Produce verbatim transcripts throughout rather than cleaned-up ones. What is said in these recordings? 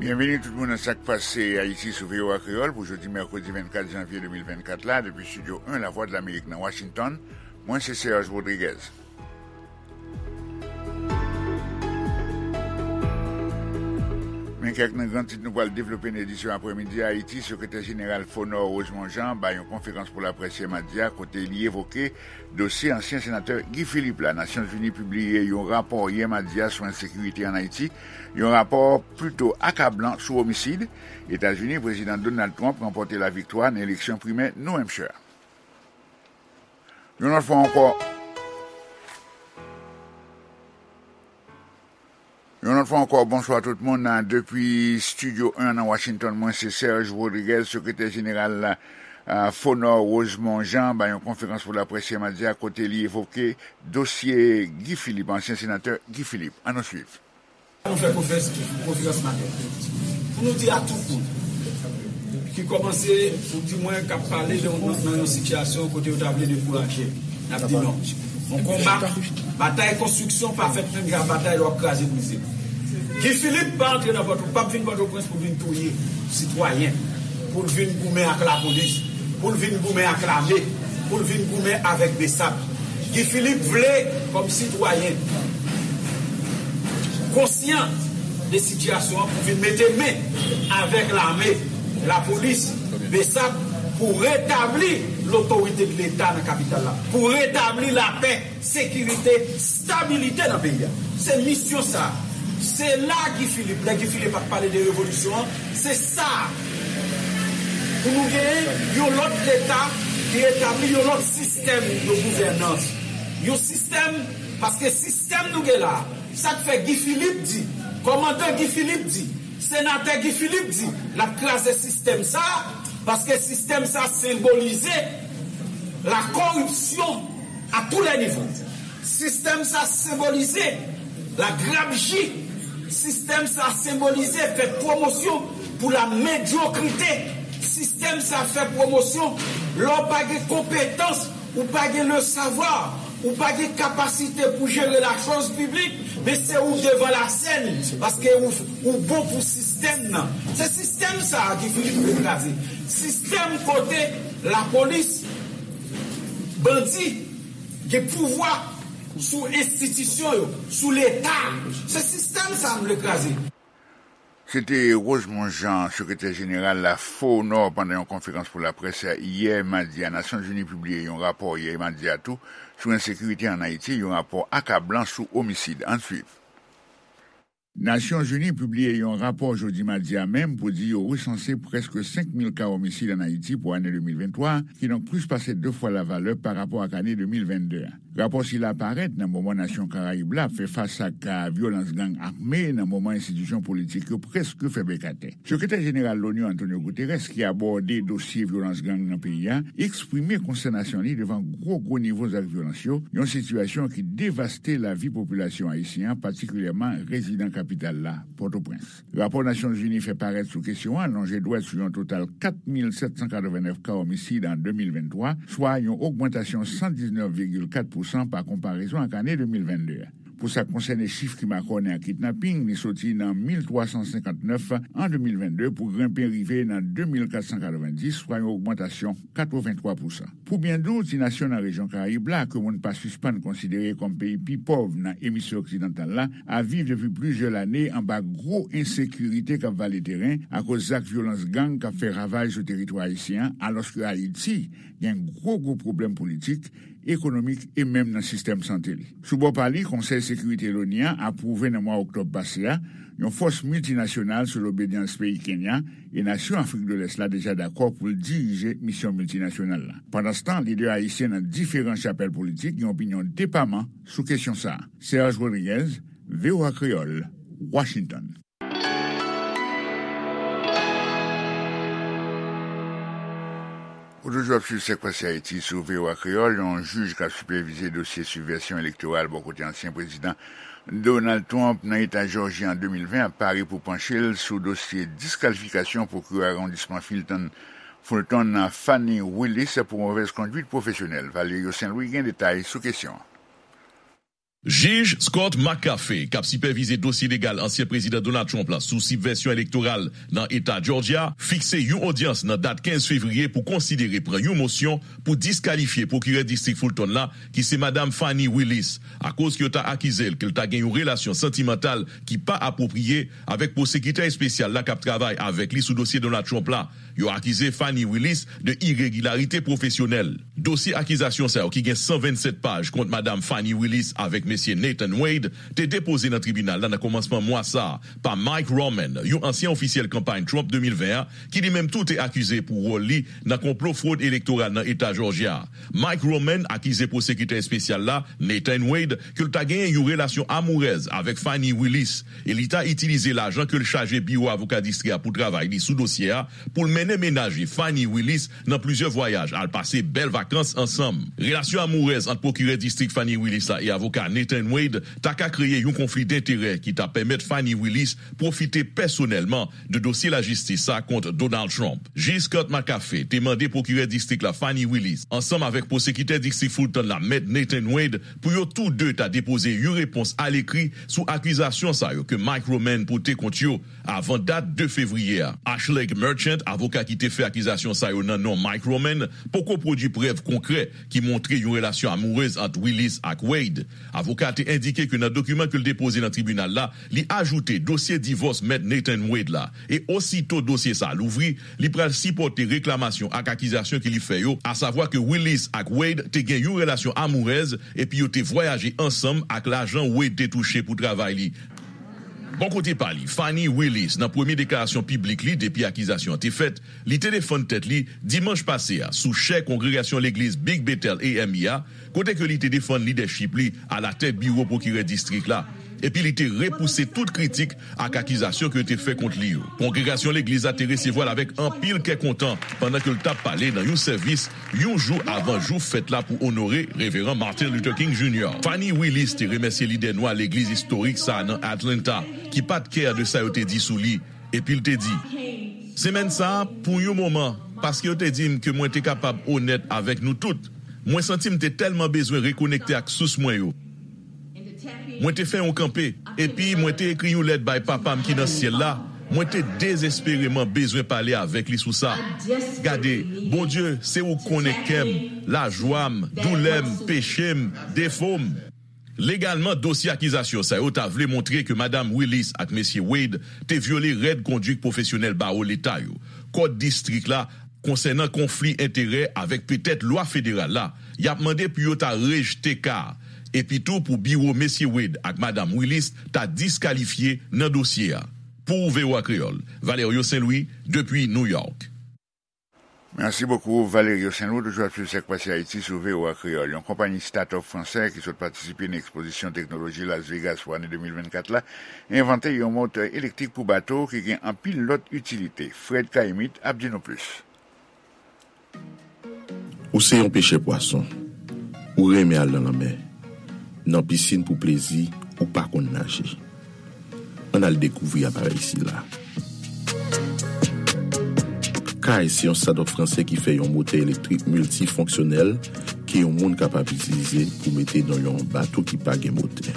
Byenveni tout moun nan Sa k Pase Ayiti sou V O A Kreyòl pou jodi mèkredi vennkat janvye de mil vennkat la, depi Estidyo en Lavwadlamerik nan Washington. Mwen se Serge Rodriguez. Men kèk nan gran tit nou pral devlope nan edisyon aprèmidi a. Ayiti, Sekretè Jeneral Fonor Rosemond Jean bay yon konferans pou laprès yè madi a, kote li evoke dosye ansyen senatè Guy Philippe la. Nasyonzini pibliye yon rapò yè madi a sou ensekirite ann Ayiti, yon rapò plito akablan sou omisid. Etazini, Prezidan Donald Trump ranpòte laviktwa nan eleksyon primè New Hampshire. Yon lòt fwa ankò, yon lòt fwa ankò, bonswa tout moun. Depi Estidyo en nan Washington, mwen se Serge Rodriguez, Sekretè Jeneral, ah, Fonor Rosemond Jean bay yon konferans pou laprès yè madi a, kote li evoke dosye Guy Philippe, ansyen senatè Guy Philippe. Ann nou swiv. Nou fè konferans, konferans maten pou nou di a tout moun ki kòmanse, ou di mwen k ap pale de, nan, nan yon sitiyasyon kote yo ta vle dekouraje, n ap di non. Yon konba, batay konstriksyon pa fèt menm jan ak batay lè w ap kraze brize. Guy Philippe pa antre nan Pòto, p ap vin Pòtoprens pou vin touye sitwayen, pou l vin goumen ak lapolis, pou l vin goumen ak lame, pou l vin goumen avèk BSAP. Guy Philippe vle, kòm sitwayen, konsyan de sitiyasyon an pou vin mete men avèk lame, lapolis, BSAP, pou retabli lotorite de Leta nan kapital la, pou retabli lapè, sekirite, stabilite nan peyi a. Se misyon sa. Se la Guy Philippe, lè Guy Philippe ap pale de revolisyon an, se sa. Pou nou genyen yon lòt Leta ki etabli yon lòt sistèm de gouvènans. Yon sistèm, paske sistèm nou gen la, sa k fè Guy Philippe di, kòmandan Guy Philippe di, senatè Guy Philippe di, l ap kraze sistèm sa, paske sistèm sa senbolize la koripsyon a tou lè nivo. Sistèm sa senbolize la grabji. Sistèm sa senbolize fè pwomosyon pou la medyokrite. Sistèm sa fè pwomosyon lè w pa gen konpetans, ou pa gen le savoir, ou pa gen kapasite pou jere la chose publique, men se ou devan la sèn, paske ou, ou bon pou sistèm nan. Se sistèm sa a ki fini pou kraze. Sistèm kote lapolis, bandi, gen pouvwa sou enstitisyon yo, sou Leta. Se sistèm sa a m vle kraze. Se te Rosemond Jean, sekretè jeneral la Fonor, pandan yon konferans pou laprès yè madi a. Nasyonzini pibliye yon rapò yè madi a tou sou ensekirite ann Ayiti, yon rapò akablan sou omisid. Ann swiv. Nasyonzini pibliye yon rapò jodi madi a menm pou di yo resanse prèske senk mil ka omisid ann Ayiti pou ane de mil venntwa, kidonk plis pase de fwa lavalè pa rapò ak ane de mil vennde a. Rapò sila parèt nan moman nasyon Karayib la ap fè fas ak, a, vyolans gang ame, nan moman enstitisyon politik yo prèske fè bèk atè. Sekretè jeneral Loni, Antonio Guterres, ki abòde dosye vyolans gang nan peyi a, eksprime konstènasyon li devan gwo, gwo nivo zak vyolans yo, yon sitiyasyon ki devaste lavi popilasyon ayisyen an, patikilyèman rezidan kapital la, Pòtoprens. Rapò Nasyonzini fè parèt sou kesyon an lonje dwèt sou yon total kat mil sèt san katrevennnèf ka omisid an de mil venntwa, swa yon ogmantasyon san diznèf vigil kat pousan pa konparezon ak ane de mil vennde a. Pou sa k konsène chif ki makònen ak kidnaping, li soti nan mil twa san senkantnèf an de mil vennde pou grenpe rive nan de mil kat san katrevendis, swa yon ogmantasyon katrevenntwa pousan. Pou byen di w, ti nasyon nan rejyon Karayib la, ke moun pa sispann konsidere kòm peyi pi pòv nan emisfè oksidantal la, ap viv depi plizyè lane anba gwo ensekirite k ap vale teren akoz zak vyolans gang k ap fè ravaj sou teritwa ayisyen an, alòske Ayiti gen gwo, gwo pwoblèm politik, ekonomik e menm nan sistèm sante li. Sou bò pa li, Konsèy Sekirite Loni an apwouve nan mwa oktòb pase a yon fòs miltinasyonal sou lobedyans peyi Kenya, e nasyon Afrik de Lès la deja dakò pou l dirije misyon miltinasyonal la. Pandanstan, lidè ayisyen nan diferan chapèl politik gen opinyon depaman sou kesyon sa a. Serge Rodriguez, V O A Kreyòl, Washington. Ou toujou ap swiv Sa k Pase Ayiti sou V O A Kreyòl. Yon jij k ap sipèvize dosye sibvansyon elektoral bò kote ansyen prezidan Donald Trump nan eta Jòji an de mil ven ap pare pou panche l sou dosye diskalifikasyon pwokirè awondisman Fulton, Fulton Fani Willis pou movèz kondwit pwofesyonèl. Valerio Saint Louis gen detay sou kesyon an. Jij Scott McAfee, k ap sipèvize dosye legal ansyen Prezidan Donald Trump la sou sibvensyon elektoral nan Eta Georgia, fikse yon odyans nan dat kenz fevriye pou konsidere pran yon mosyon pou diskalifye pwokirè distrik Fulton la, ki se Madam Fani Willis, akoz ke yo ta akize l ke l ta gen yon relasyon santimantal ki pa apwopriye avèk pwosekitè espesyal la k ap travay avèk li sou dosye Donald Trump la. Yo akize Fani Willis de iregilarite pwofesyonèl. Dosye akizasyon sa yo, ki gen san vennsèt paj, kont Madam Fani Willis avèk Mesye Nathan Wade, te depoze nan tribinal la nan kòmansman mwa sa a pa Mike Roman, yon ansyen ofisyèl kanpay Trump de mil ven an, ki li menm tou te akize pou wòl li nan konplo fwod elektoral nan Eta Jòjya. Mike Roman akize pwosekitè espesyal la, Nathan Wade, ke l ta genyen yon relasyon amourèz avèk Fani Willis e li ta itilize lajan ke l chaje biwo avoka distri a pou travay li sou dosye a, pou l mennen mennaj li, Fani Willis, nan plizyè vwayaj, al pase bèl vakans ansanm. Relasyon amourèz ant pwokirè distrik Fani Willis la e avoka Nathan Wade ta ka kreye yon konfli denterè ki ta pèmèt Fani Willis pwofite pèsonèlman de dosye lajistis sa kont Donald Trump. Jij Scott McAfee te mande pwokirè distrik la, Fani Willis, ansanm avèk pwosekitè distrik Fulton la, Mèt Nathan Wade, pou yo tou de ta depoze yon repons alekri sou akizasyon sa yo ke Mike Roman pote kont yo avan dat de fevriye a. Ashley Merchant, avoka ki te fè akizasyon sa yo nan non Mike Roman, poko pwodui prèv konkrè ki montre yon relasyon amourèz ant Willis ak Wade. Avoka a te endike ke nan dokiman ke l depoze nan tribinal la, li ajoute dosye divòs Mèt Nathan Wade la, e osito dosye sa a louvri, li pral sipòte reklamasyon ak akizasyon ke li fè yo, asavwa ke Willis ak Wade te gen yon relasyon amourèz epi yo te vwayaje ansanm ak lajan Wade te touche pou travay li. Bò kote pa li, Fani Willis, nan premye deklarasyon piblik li depi akizasyon an te fèt, li te defann tèt li dimanch pase a sou chè kongregasyon legliz Big Bethel A M E a, kote ke li te defann lidèchip li alatèt biwo pwokirè distrik la, epi li te repouse tout kritik ak akizasyon ke yo te fè kont li yo. Kongregasyon legliz la te resevwa l avèk anpil kè kontan pandan ke l t ap pale nan yon sèvis yon jou avan jou fèt la pou onore Reveran Martin Luther King Junior. Fani Willis te remèsye lidè nwa legliz istorik sa a nan Atlanta, ki pa t kè de sa yo te di sou li, epi l te di, Semèn sa a, pou yon moman, paske yo te di m ke mwen te kapab onèt avèk nou tout, mwen santi m te tèlman bezwen rekonekte ak sous mwen yo. Mwen te fè yon kanpe, epi mwen te ekri yon lèt bay Papa m ki nan syèl la. Mwen te dezespereman bezwen pale avèk li sou sa. Gade, Bondye, se ou k konnen kè m, lajwa m, doulè m, peche m, defo m. Legalman, dosye akizasyon sa yo ta vle montre ke Madam Willis ak Mesye Wade te vyole règ konduit pwofesyonèl bawo leta yo, kòd distrik la, konsènan konfli enterè avèk petèt lwa federal la, y ap mande pou yo ta rejte ka a, epi tou pou biwo Mesye Wade ak Madam Willis ta diskalifye nan dosye a. Pou V O A Kreyòl, Valerio Saint Louis, depi New York. Merci beaucoup, Valerio Saint Louis. Toujou ap swiv sa k pase Ayiti sou V O A Kreyòl. Yon konpayi start-up fransè ki sot patisipe nan ekspozisyon teknoloji Las Vegas pou ane de mil vennkat la, envante yon motè elektrik pou bato ki gen anpil lòt itilite. Fred Caïmite ap di nou plis. Ou se yon pechè pwason. Ou renmen al nan lanmè. Nan pisin pou plezi, ou pa konn naje. Ann al dekouvri aparèy sila. Kay se yon start-up fransè ki fè yon motè elektrik miltifonksyonèl ke yon moun kapab itilize pou mete nan yon bato ki pa gen motè.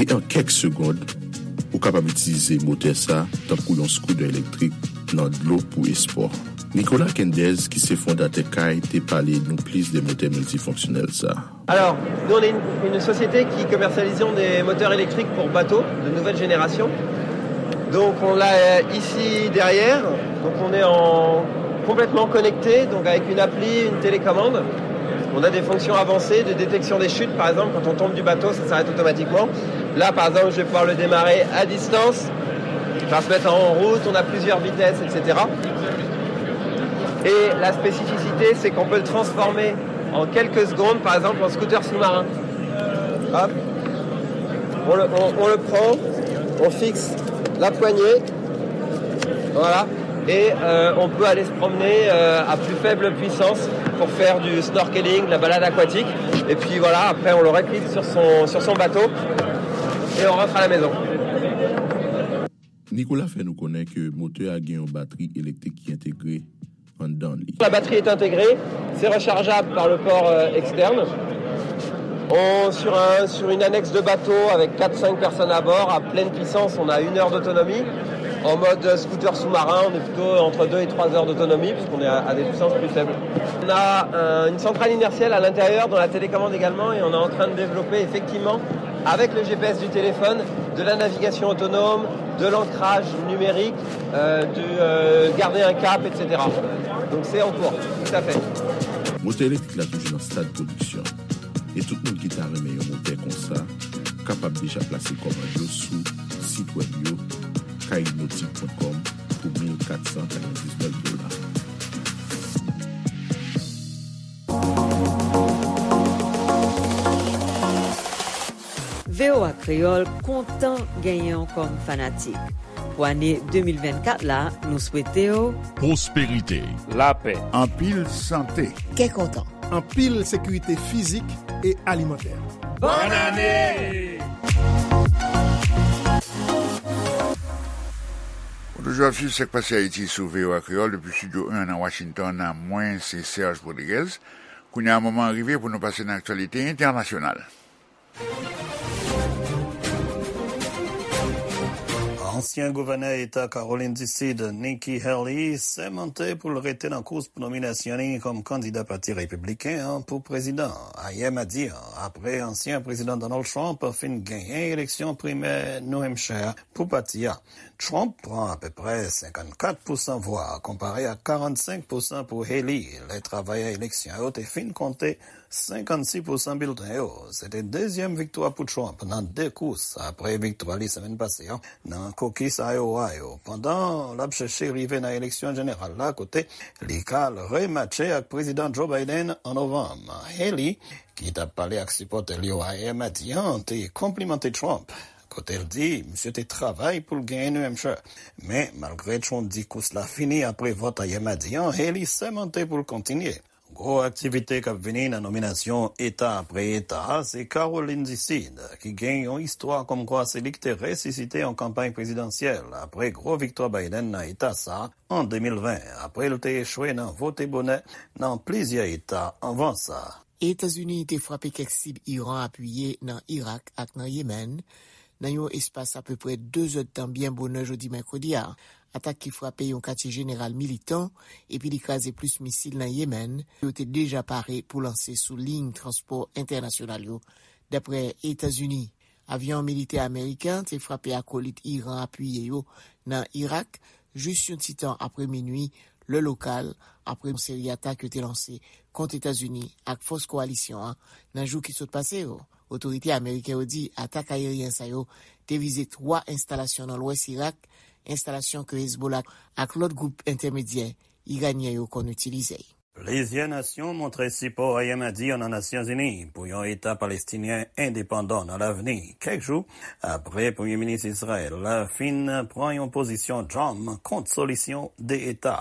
E an kèk segond, ou kapab itilize motè sa tankou yon skoutè elektrik nan dlo pou espò. Nicolas Quendez, ki se fondatè Kay, te pale nou plis de motè miltifonksyonèl sa. Alors, nous on est une, une société qui commercialisons des moteurs électriques pour bateaux de nouvelle génération. Donc on l'a euh, ici derrière, donc on est en complètement connecté, donc avec une appli, une télécommande. On a des fonctions avancées de détection des chutes, par exemple, quand on tombe du bateau, ça s'arrête automatiquement. Là, par exemple, je vais pouvoir le démarrer à distance, enfin se mettre en route, on a plusieurs vitesses, et cetera. Et la spécificité, c'est qu'on peut le transformer en quelques secondes, par exemple, en scooter sous-marin. Hop. On le, on, on le prend, on fixe la poignée. Voilà. Et euh, on peut aller se promener euh, à plus faible puissance pour faire du snorkeling, de la balade aquatique. Et puis voilà, après on le reclique sur son, sur son bateau et on rentre à la maison. Nicolas fè nou konnen ke motè a gen yon batri elektrik ki entegre anndan li. La batterie est intégrée, c'est rechargeable par le port euh, externe. On, sur un, sur une annexe de bateau avec quatre cinq personnes à bord, à pleine puissance, on a une heure d'autonomie. En mode scooter sous-marin, on est plutôt entre deux et trois heures d'autonomie, puisqu'on est à, à des puissances plus faibles. On a un- une centrale inertielle à l'intérieur, dans la télécommande également, et on est en train de développer effectivement, avec le G P S du téléphone, de la navigation autonome, de l'ancrage numérique, euh, de euh, garder un cap, et cetera. Donc c'est en cours, tout à fait. Motè elektrik la toujou nan stad pwodiksyon, e tout moun ki ta renmen yon motè konsa kapab deja plase kòmand yo sou sit wèb yo, kaynotik pwen kòm, pou mil kat san katrevendiznèf dola. V O A Kreyòl kontan genyen w kòm fanatik. Pou ane de mil vennkat la, nou swete w pwosperite, lapè, anpil sante, kè kontan, anpil sekirite fizik e alimantè. Bòn ane! Ou toujou ap swiv Sa k Pase Ayiti sou V O A Kreyòl depi Estidyo en nan Washington. Mwen se Serge Rodriguez. Kounye a, moman an rive pou nou pase nan aktyalite entènasyonal. Ansyen gouvènè eta Kawolin di Sid, Nikki Haley, sèmante pou l rete nan kous pou nominasyon li kòm kandida Pati Repibliken an pou prezidan ayè madi an, apre ansyen prezidan Donald Trump fin genyen eleksyon primè New Hampshire pou pati a. Trump pran apeprè senkannkat pousan vwa, konpare ak karannsenk pousan pou Haley, lè travayè eleksyon yo te fin konte senkannsis pousan bilten yo. Se te dezyèm viktwa pou Trump nan de kous, apre viktwa li semèn pase an nan kokis Iowa yo, pandan l ap chèche rive nan eleksyon jeneral la, kote li ka al rematche ak Prezidan Joe Biden an novanm. Haley, ki t ap pale ak sipòtè l yo ayè madi an, te konplimante Trump, kote l di misye te travay pou l genyen New Hampshire. Men, malgre Trump di kous la fini apre vòt ayè madi an, Haley sèmante pou l kontinye. Gwo aktivite k ap vini nan nominasyon eta apre eta a, se Kawolin di Sid, ki gen yon istwa kòmkwa se li ki te resisite yon kanpay prezidansyèl apre gwo viktwa Biden nan eta sa a an de mil ven, apre l te echwe nan vote bonè nan plizyè eta anvan sa. Etazini te frape kèk sib Iran apiye nan Irak ak nan Yemen, nan yon espas apeprè de zèdtan byen bonè jodi mèkredi a. Atak ki frape yon katye jeneral militan, epi li kraze plis misil nan Yemen, yo te deja pare pou lanse sou liy transpò entènasyonal yo, daprè Etazini. Avyon militè ameriken an te frape akolit Iran apiye yo nan Irak, jis yon ti tan apre minui, lè lokal, apre yon seri atak yo te lanse kont Etazini ak fòs kowalisyon an nan jou ki sot pase yo. Otorite ameriken yo di atak ayeryen sa yo te vize twa enstalasyon nan lwès Irak, enstalasyon ke Hezbollah ak lòt gwoup entèmedyè iranyen yo konn itilize. Plizyè nasyon montre sipò ayè madi an nan Nasyonzini pou yon Eta palestinyen endepandan nan lavni, kèk jou apre Premye Minis Izrayèl la fin pran yon pozisyon djanm kont solisyon de Eta.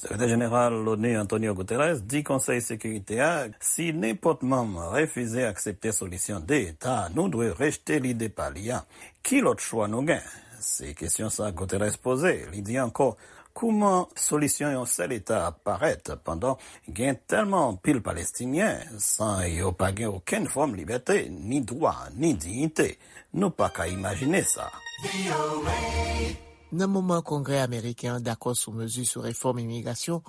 Sekretè Jeneral l'ONU Antonio Guterres di Konsèy Sekirite a, si nenpòt manm refize aksepte solisyon de Eta, nou dwe rejte lide pa li a. Ki lòt chwa nou gen? Se kesyon sa Guterres poze. Li di ankò, kouman solisyon yon sèl Eta ap parèt pandan gen tèlman anpil Palestinyen san yo pa gen okenn fòm libète, ni dwa, ni diyite? Nou pa ka imajine sa. Nan moman Kongrè ameriken an dakò sou mezi sou refòm imigrasyon,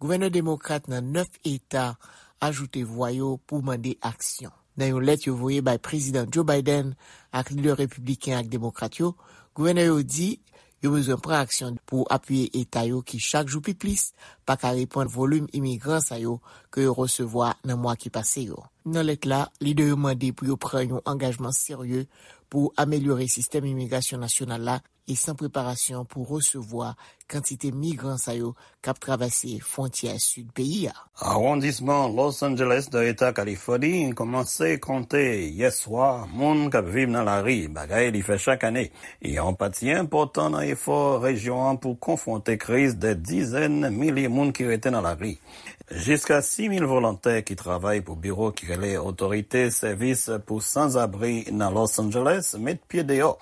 gouvènè demokrat nan nèf eta ajoute vwa yo pou mande aksyon. Nan yon lèt yo voye bay Prezidan Joe Biden ak lidè repibliken ak demokrat yo, gouvènè yo di yo bezwen pran aksyon pou apiye eta yo ki chak jou pi plis pa ka reponn volim imigran sa yo ke yo resevwa nan mwa ki pase yo. Nan lèt la, lidè yo mande pou yo pran yon angajman serye pou amelyore sistèm imigrasyon nasyonal la e san preparasyon pou resevwa kantite migran sa yo k ap travèse fwontyè sid peyi a. Awondisman Los Angeles nan eta Kalifòni kòmanse konte yè swa moun k ap viv nan lari, bagay li fè chak ane. Yon pati enpòtan nan efò rejyon an pou konfwonte kriz dè dizèn milye moun ki rete nan lari. Jiska sis mil volontè ki travay pou biwo ki rele Otorite Sèvis pou Sanzabri nan Los Angeles met pye deyò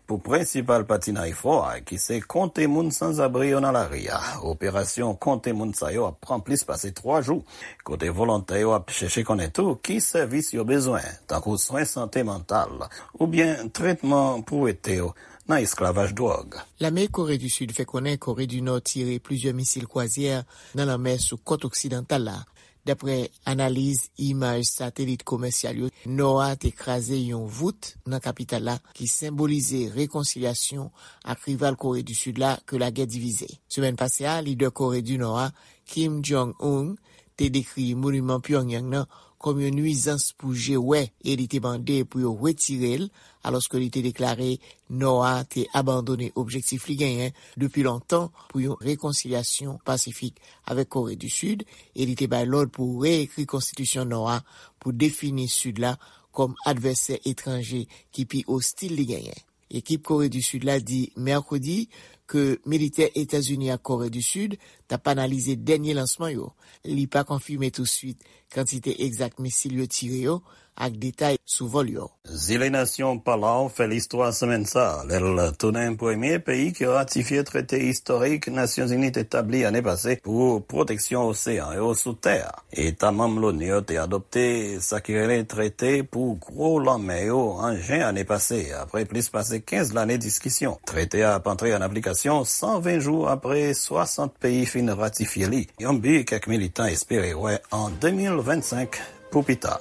pou prensipal pati nan efò a, ki se konte moun sanzabri yo nan lari a. Operasyon konte moun sa yo ap pran plis pase twa jou, kote volontè yo ap chèche konnen tou ki sèvis yo bezwen, tankou swen sante mantal oubyen tretman pou wete yo nan esklavaj dwòg. Lame Kore di Sid fè konnen Kore di Nò tire plizyè misil kwazyè nan lanmè sou kòt oksidantal la. Daprè analiz imaj satelit komèsyal yo, Nò a te kraze yon vout nan kapital la ki senbolize rekonsilyasyon ak rival Kore di Sid la ke lagè divize. Semèn pase a, lidè Kore di Nò a, Kim Jong-un, te dekri moniman Pyongyang nan kòm yon nwizans pou je wè e li te mande pou yo retire l, alòske li te deklare Nò a te abandone objektif li genyen depi lontan pou yon rekonsilyasyon pasifik avèk Kore di Sid, e li te bay lòd pou reekri konstitisyon Nò a pou defini Sid la kòm advèsè etranje ki pi ostil li genyen. Ekip Kore di Sid la di mèkredi ke militè Etazini ak Kore di Sid t ap analize dènye lansman yo. Li pa konfime touswit kantite egzak misil yo tire yo ak detay sou vòl yo. Zile nasyon Palau fè listwa semèn sa a, lè l tounen premye peyi ki ratifye trete istorik Nasyonzini te tabli ane pase pou pwoteksyon oseyan yo sou tè a. Eta manm Loni yo te adopte sa ki rele trete pou gwo lanmè yo an jen ane pase, apre plis pase kenz lane diskisyon. Trete a ap antre an aplikasyon san ven jou apre swasant peyi fin ratifye li, yon bi kèk militan espere wè an de mil vennsenk pou pita.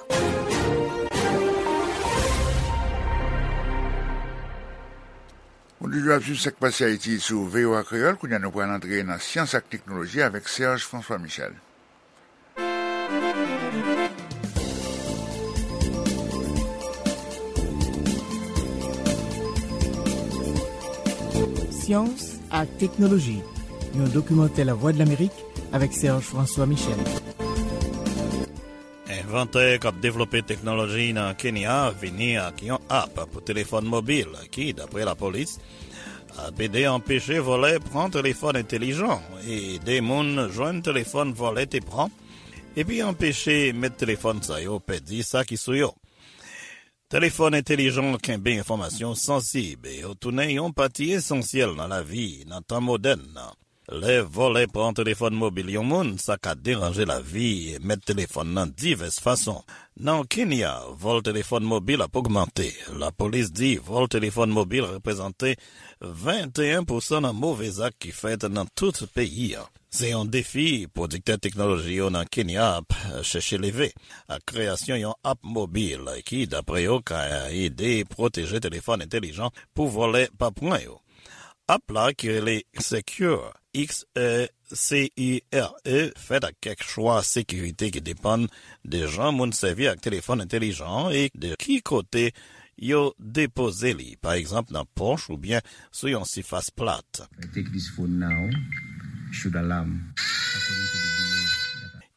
Ou toujou ap swiv Sa k Pase Ayiti sou V O A Kreyòl. Kounye a, nou pral antre nan syans ak teknoloji avèk Serge François Michel. Syans ak teknoloji, yon dokimantè Lavwadlamerik avèk Serge François Michel. Envantè k ap devlope teknoloji nan Kenya vini ak yon app pou telefòn mobil ki, dapre lapolis, ap ede anpeche vòlè pran telefòn entelijan e ede moun jwenn telefòn vòlè te pran, epi anpeche mèt telefòn sa yo pèdi sa ki sou yo. Telefòn entelijan kenbe enfòmasyon sansib e yo tounen yon pati esansyèl nan lavi nan tan modèn nan. Lè vòlè pran telefòn mobil yon moun, sa ka deranje lavi mèt telefòn nan divès fason. Nan Kenya, vòl telefòn mobil ap ogmante. Lapolis di vòl telefòn mobil reprezante venteyen pousan nan move zak ki fèt nan tout peyi a. Se yon defi pwodiktè teknoloji yo nan Kenya ap chèche leve, ak kreyasyon yon app mobil ki, dapre yo, ka ede pwoteje telefòn entelijan pou vòlè pa pran yo. App la, ki rele Secure, X E C U R E, fèt ak kèk chwa sekirite ki depann de jan moun sèvi ak telefòn entelijan an e de ki kote yo depoze li, pa egzanp nan pòch oubyen sou yon sifas plat. I take this phone now, should alarm, according to the below.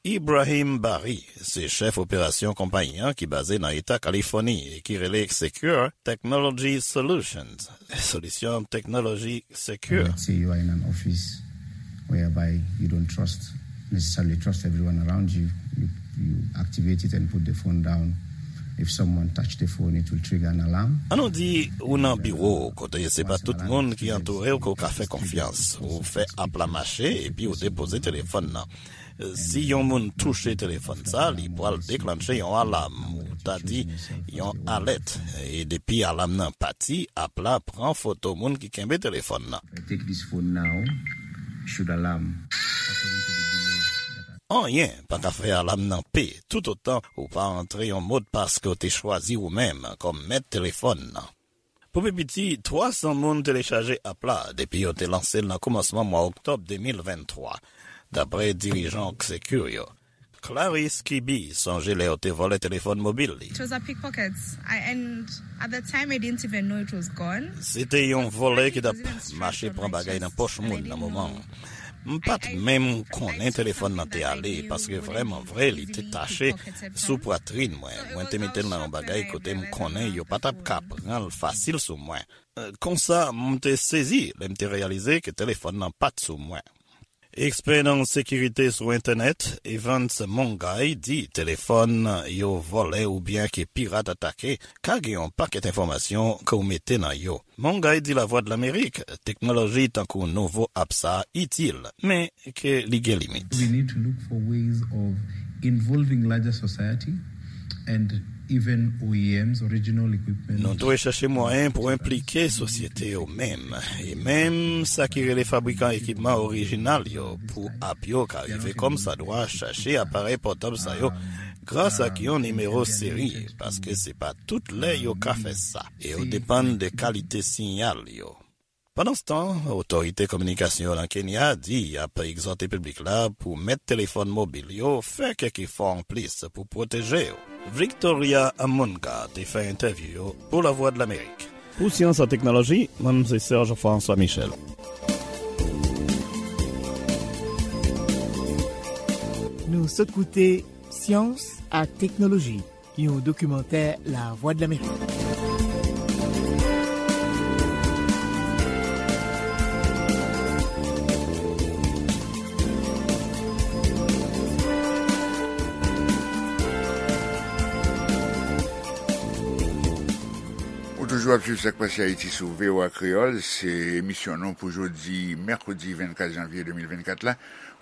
Ibrahim Bari se chèf operasyon konpayi an ki baze nan Eta Kalifòni e ki rele Secure Technology Solutions, solisyon teknoloji sekir. Let's say you are in an office whereby you don't trust, necessarily trust everyone around you. You, you activate it and put the phone down. If someone touch the phone, it will trigger an alarm. Ann nou di ou nan biwo kote se pa tout moun ki antoure w ke w ka fè konfyans. Ou fè app la mache epi ou depoze telefòn nan. Si yon moun touche telefòn sa, li pral deklanche yon alam, ou ta di yon alèt. E depi alam nan pati, app la pran foto moun ki kenbe telefòn nan. Take this phone now, should alarm, according to the below. Anyen pa ka fè alam nan pe toutotan ou pa antre yon modpas ke w te chwazi ou menm kòm mèt telefòn nan. Pou pi piti, twa san moun telechaje app la depi yo te lanse l nan kòmansman mwa oktòb de mil venntwa, dapre dirijan Secure yo. Clarisse Kibi sonje lè yo te vòlè telefòn mobil li. It was a pickpocket. I, and at the time, I didn't even know it was gone. Se te yon vòlè ki t ap mache pran bagay nan pòch moun nan moman an. M pa t menm konnen telefòn nan te ale, paske vrèman vre, li te tache sou pwatrin mwen. Mwen te mete l nan yon bagay kote m konnen yo pa t ap ka pran l fasil sou mwen. Konsa, m te sezi lè m te reyalize ke telefòn nan pa t sou mwen. Ekspè nan sekirite sou entènèt, Evans Mongay, di telefòn yo vòlè oubyen ke pirat atake ka gen yon pakèt enfòmasyon ke w mete nan yo. Mongay di Lavwadlamerik teknoloji tankou nouvo app sa a itil, men ke li gen limit. We need to look for ways of involving larger society and even O E Ms, original equipment. Nou dwe chèche mwayen pou enplike sosyete yo menm, e menm sa ki rele fabrikan ekipman orijinal yo pou app yo ka rive kòmsadwa chache aparèy pòtab sa yo gras ak yon nimewo seri, paske se pa tout lè yo ka fè sa, e yo depann de kalite siyal yo. Pandanstan, otorite kominikasyon nan Kenya di y ap egzòte piblik la pou mèt telefòn mobil yo fè kèk efò anplis pou pwoteje yo. Victoria Amunga te fè entèvyou yo pou Lavwadlamerik. Pou Syans ak Teknoloji, mwen se Serge François Michel. Nou sot koute Syans ak Teknoloji, yon dokimantè Lavwadlamerik. Ou toujou ap swiv Sak Pase Ayiti sou V O A Kreyòl. Se emisyon nou pou jodi mèkredi vennkat janvye de mil vennkat la.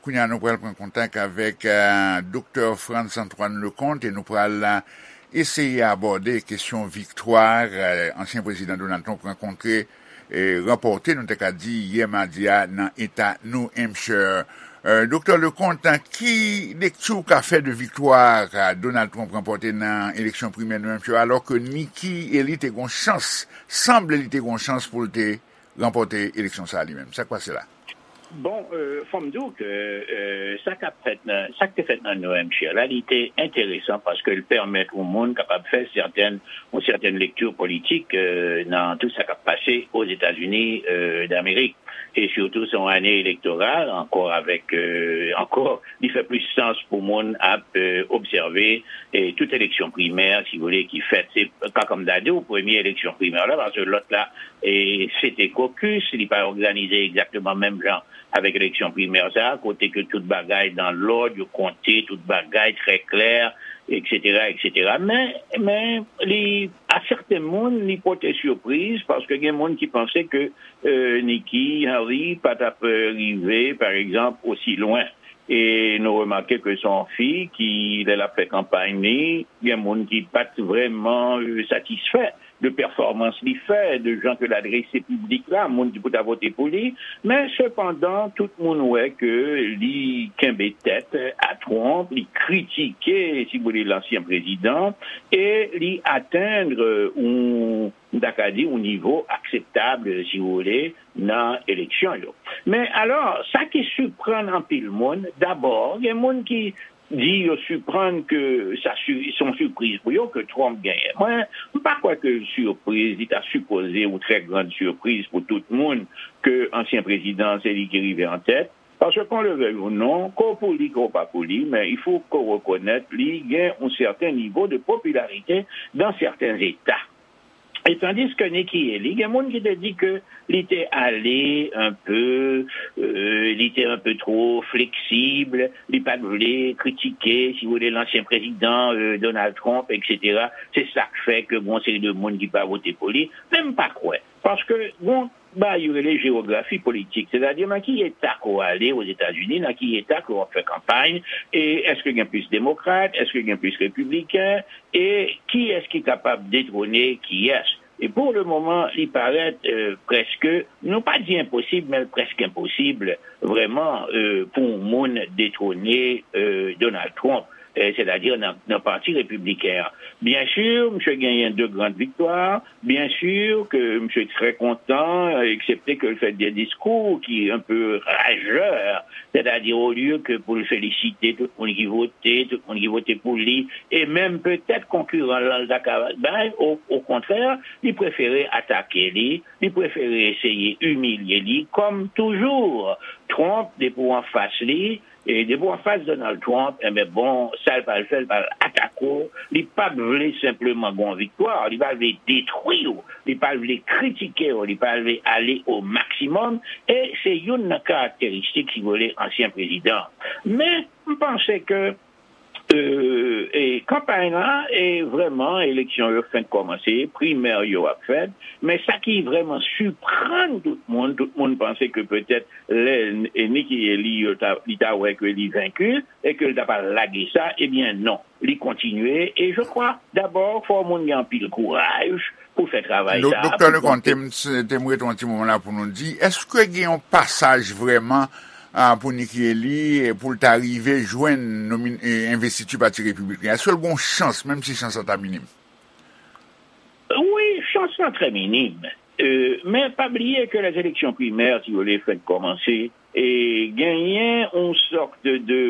Kounye a, nou pral pran kontak avèk, eh, Doktè Frantz Antoine Leconte e nou pral, eh, eseye abòde kesyon viktwa, eh, ansyen prezidan Donald Trump rankontre, eh, ranpòte, nou te ka di, yè madi a nan eta New Hampshire. Eh, Doktè Leconte, ki lekti w ka fè de viktwa, eh, Donald Trump ranpòte nan eleksyon primè New Hampshire, alò ke Nikki Haley te gon chans, sanble li te gon chans pou l te ranpòte eleksyon sa a li menm? Sa k pase la? Bon, euh, fò m di w ke, euh, sa k ap fèt nan, sa k te fèt nan New Hampshire la, li te enteresan paske l pèmèt yon moun kapab fè sètèn, yon sètèn lekti politik, euh, nan tout sa k ap pase Ozetazini, euh, Damerik. E sitou, se yon ane elektoral, ankò avèk, euh, ankò, li fè plis sans pou moun ap, euh, obsève, e tout eleksyon primè, si w vle, ki fèt. Se, ka, kòm m ta di w, premye eleksyon primè la, paske lòt la, e se te kokis, li pa òganize egzakteman menm jan avèk eleksyon primè sa a, kote ke tout bagay dan lòd, yo konte tout bagay trè klè, etsetera, etsetera. Men, men, li, a sèten moun, li pote sipriz, paske gen moun ki panse ke, e, Nikki Haley pa t ap, e, rive, pa egzanp, osi lwen. E nou remake ke se yon fi ki, lè l ap fè kanpay li, gen moun ki pa t vrèman, e, satisfè de pèfòmans li fè, de jan ke l adrese piblik la, moun ki pou ta vote pou li. Men, sepandan, tout moun wè ke li kenbe tèt a Trump, li kritike, si w vle, lansyen prezidan, e li atenn, e, yon, m ta ka di, yon nivo akseptab, si w vle, nan eleksyon yo. Men alò, sa ki siprann anpil moun, dabò, gen moun ki di yo siprann ke sa si-, se yon sipriz pou yo ke Trump genyen. Mwen, m pa kwè ke l sipriz, li ta sipoze yon trè grann sipriz pou tout moun ke ansyen prezidan, se li ki rive an tèt. Paske qu'on le veuille ou non, ke w pou li, ke w pa pou li, men il faut que w rekonèt li gen yon sèten nivo de popilarite dans certains États. E tandis ke Nikki Haley, gen moun ki te di ke li te ale un peu, euh, li te un peu trop flexible, li pa t vle kritike, si w vle, lansyen prezidan, euh, Donald Trump, etsetera. Se sa k fè ke gon seri de moun ki pa vote pou li. Men m pa kwè. Paske gon bagay yo rele jewografi politik, sètadi nan ki eta ke w ale Ozetazini, nan ki eta ke w ap fè kanpay, e èske gen plis demokrat, èske gen plis repibliken, e kiyès ki kapab detwone kiyès. E pou le moman, li parèt, e, prèske, nou pa di enposib, men l prèske enposib, vrèman, e, pou yon moun detwone, e, Donald Trump, e, sètadi nan, nan pati repibliken an. Byen si, misye genyen de grann viktwa, byen si ke misye trè kontan, eksepte ke l fè de diskou ki un peu rajè, sètadi olye ke pou l felisite tout moun ki vote, tout moun ki vote pou li, e menm petèt konkiran l lan l ta ka bay, o, okontrè, li prefere atake li, li prefere eseye imilye li, kòm toujou, Trump, depi w anfas li, E depi w anfas Donald Trump, enben bon, sa l pral fè, l pral atake w. Li p ap vle senpleman gen yon viktwa, li pa vle detwi w, li pa vle kritike w, li pa vle ale o maksimòm. E se youn nan karakteristik, si w vle, ansyen prezidan. Men, m panse ke e, e kanpay la, e vrèman, eleksyon yo fenk kòmanse, primè yo ap fèt, men sa ki vrèman siprann tout moun, tout moun panse ke petèt lè e Nikki Haley yo ta, li ta wè ke li venki e ke l ta pral lage sa, ebyen non, li kontinye. E je crois, dabò, fò moun gen anpil kouraj pou fè travay sa. Doktè Leconte, te m, te m ret yon ti moman la pou nou di, èske gen yon pasaj vrèman a, pou Nikki Haley, e, pou l ta rive jwenn nomin, e, envestiti Pati Repibliken? Èske l gen yon chans, menm si chans lan ta minim? Wi, chans lan trè minim. E, men pa bliye ke lèzeleksyon primè, si w vle, fèk kòmanse. E genyen yon sòt de, de,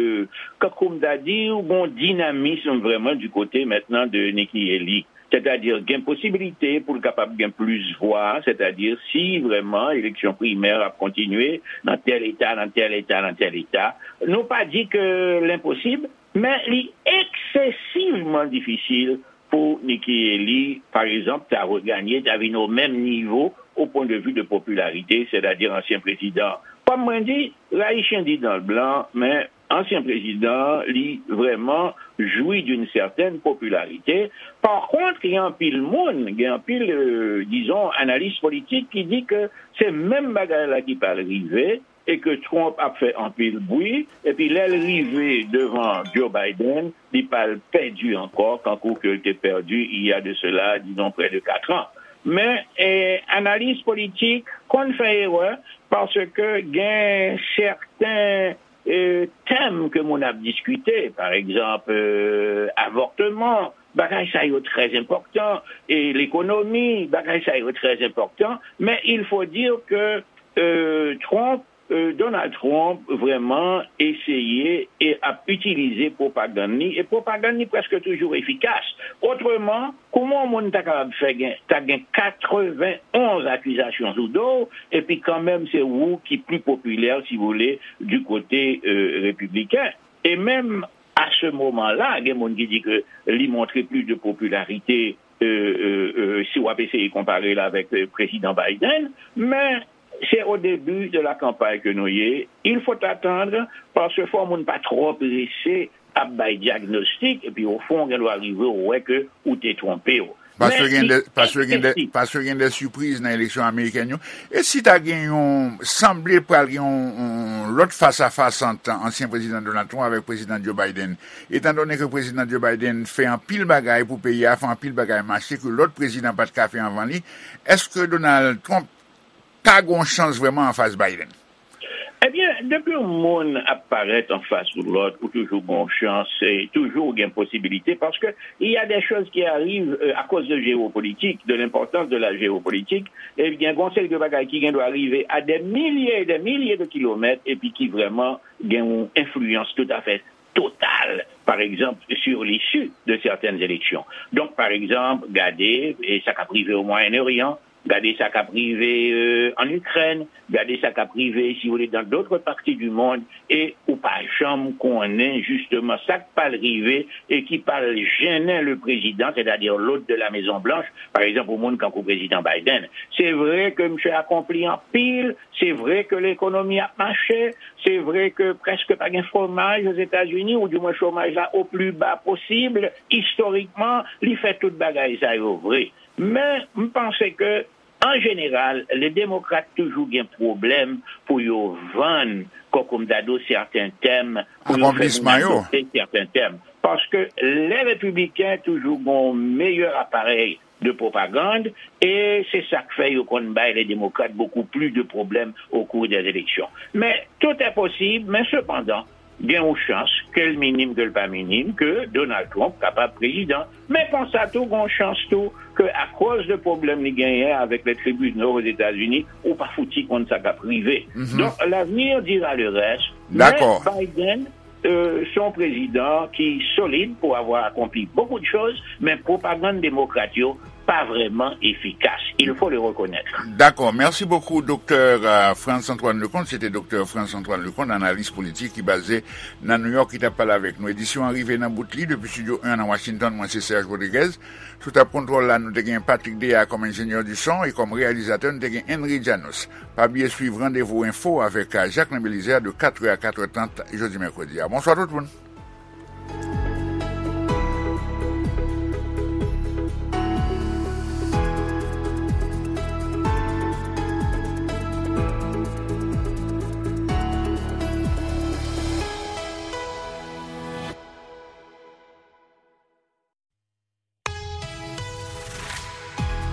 kòm m ta di, yon dinamis vrèman di kote mentnan de Nikki Haley. Sètadi, gen posibilite pou l kapab gen plis vwa, sètadi, si vrèman eleksyon primè ap kontinye nan tèl eta, nan tèl eta, nan tèl eta. Nou pa di ke l enposib, men li eksesivman difisil pou Nikki Haley, pa egzanp, ta reganye, ta vin o menm nivo o pwen de vi de popilarite, sètadi ansyen prezidan. Kòm mwen di, rayi chen di dan l blan, men ansyen prezidan, li vrèman jwi d'une certaine popularité. Pa kont, gen anpil moun, gen anpil, euh, dizon, analis politik ki di ke se menm bagay la ki pral rive e ke Trump ap fè anpil bwi, epi lè l rive devan Joe Biden, li pral pèdi ankò, kankou ke l te pèdi il y a de cela, disons, près de quatre ans. Men, eh, analis politik konn fè erè, paske gen sèten e, tèm ke moun ap diskite, pa egzanp, e, avòtman, bagay sa yo trè enpòtan, e lekonomi, bagay sa yo trè enpòtan, men il faut dire que, e, Trump, e, Donald Trump vrèman eseye e ap itilize pwopagann li, e pwopagann li prèske toujou efikas. Otreman, kouman yon moun ta kapab fè gen, ta gen katrevenn onz akizasyon sou do w, epi kanmenm se ou ki pli popilè, si w vle, di kote, e, repibliken? E menm a se moman la, gen moun ki di ke li montre plis de popilarite, e, e, e, si w ap eseye konpare l avèk, e, prezidan Biden, men se o debi de la kanpay ke nou ye. Il faut attendre, paske fò moun pa twò prese ap bay dyagnostik, epi o fon, gen dwa rive, ou wè ke ou te twonpe w. Paske gen de, paske gen de, paske gen de sipriz nan eleksyon amerikèn yo. E si ta gen yon, sanble pral gen yon, yon lòt fas a fas ant ansyen prezidan Donald Trump avèk prezidan Joe Biden, etan done ke prezidan Joe Biden fè anpil bagay pou peyi a, fè anpil bagay mache ke lòt prezidan pa t ka fè anvan li, èske Donald Trump ka gen yon chans vrèman anfas Biden? Ebyen, depi yon moun ap parèt anfas ou lòt, ou toujou gen yon chans, e toujou gen posibilite, paske il y a des choses qui arrivent, euh, à cause de géopolitique, de l'importance de la géopolitique, e gen yon seri de bagay ki gen dwa rive à des milliers et des milliers de kilomètres, epi ki vrèman gen yon enfliyans toutafè total, par exemple, sur l'issue de certaines élections. Donk, pa egzanp, gade, e sa k ap rive o Mwayen Oryan, gade sa k ap rive, euh, en Ukraine, gade sa k ap rive, si vous voulez, dans d'autres parties du monde, e ou pa janm konnen, jisteman, sa k pral rive e ki pral jennen le président, c'est-à-dire l'hôte de la Maison Blanche, par exemple, yon moun kankou prezidan Biden. Se vre ke misye akonpli anpil, se vre ke lekonomi ap mache, se vre ke prèske pa gen chomaj Ozetazini, ou di mwen chomaj la o pli ba posib, istorikman, li fè tout bagay sa yo vre. Men, m panse ke, an jeneral, le demokrat toujou gen pwoblèm pou yo vann, kòm, kòm m ta di w, sèten tèm, pou yo fè moun aksepte sèten tèm. Paske lè repibliken toujou gen yon meyè aparèy de pwopagann, e se sa k fè yo konn bay le demokrat beaucoup plus de problèmes au cours des élections. Men, tout est possible, men sepandan, gen yon chans, ke l minim, ke l pa minim, ke Donald Trump kapab prezidan. Men konsa tou, gen yon chans tou, ke akoz de pwoblèm li genyen avèk le tribinal Ozetazini, ou pa fouti konn sa k ap rive. Donk, l'avenir dira le reste. Men Biden, euh, se yon prezidan ki solid pour avoir accompli beaucoup de choses, men pwopagann demokrat yo pas vraiment efficace. Il faut le reconnaître. D'accord. Merci beaucoup, docteur euh, Frantz Antoine Leconte. C'était docteur Frantz Antoine Leconte, analyste politique qui est basé dans New York, qui t'a parlé avec nous. Édition arrivée dans Boutli depuis Studio un à Washington. Moi, c'est Serge Rodriguez. Sous ta contrôle là, nous avons Patrick Déa comme ingénieur du son et comme réalisateur, nous avons Henry Janos. Pas oublier suivre rendez-vous info avec euh, Jacques Belizaire de quatre heures à quatre heures trente jeudi mercredi. Bonsoir tout le monde.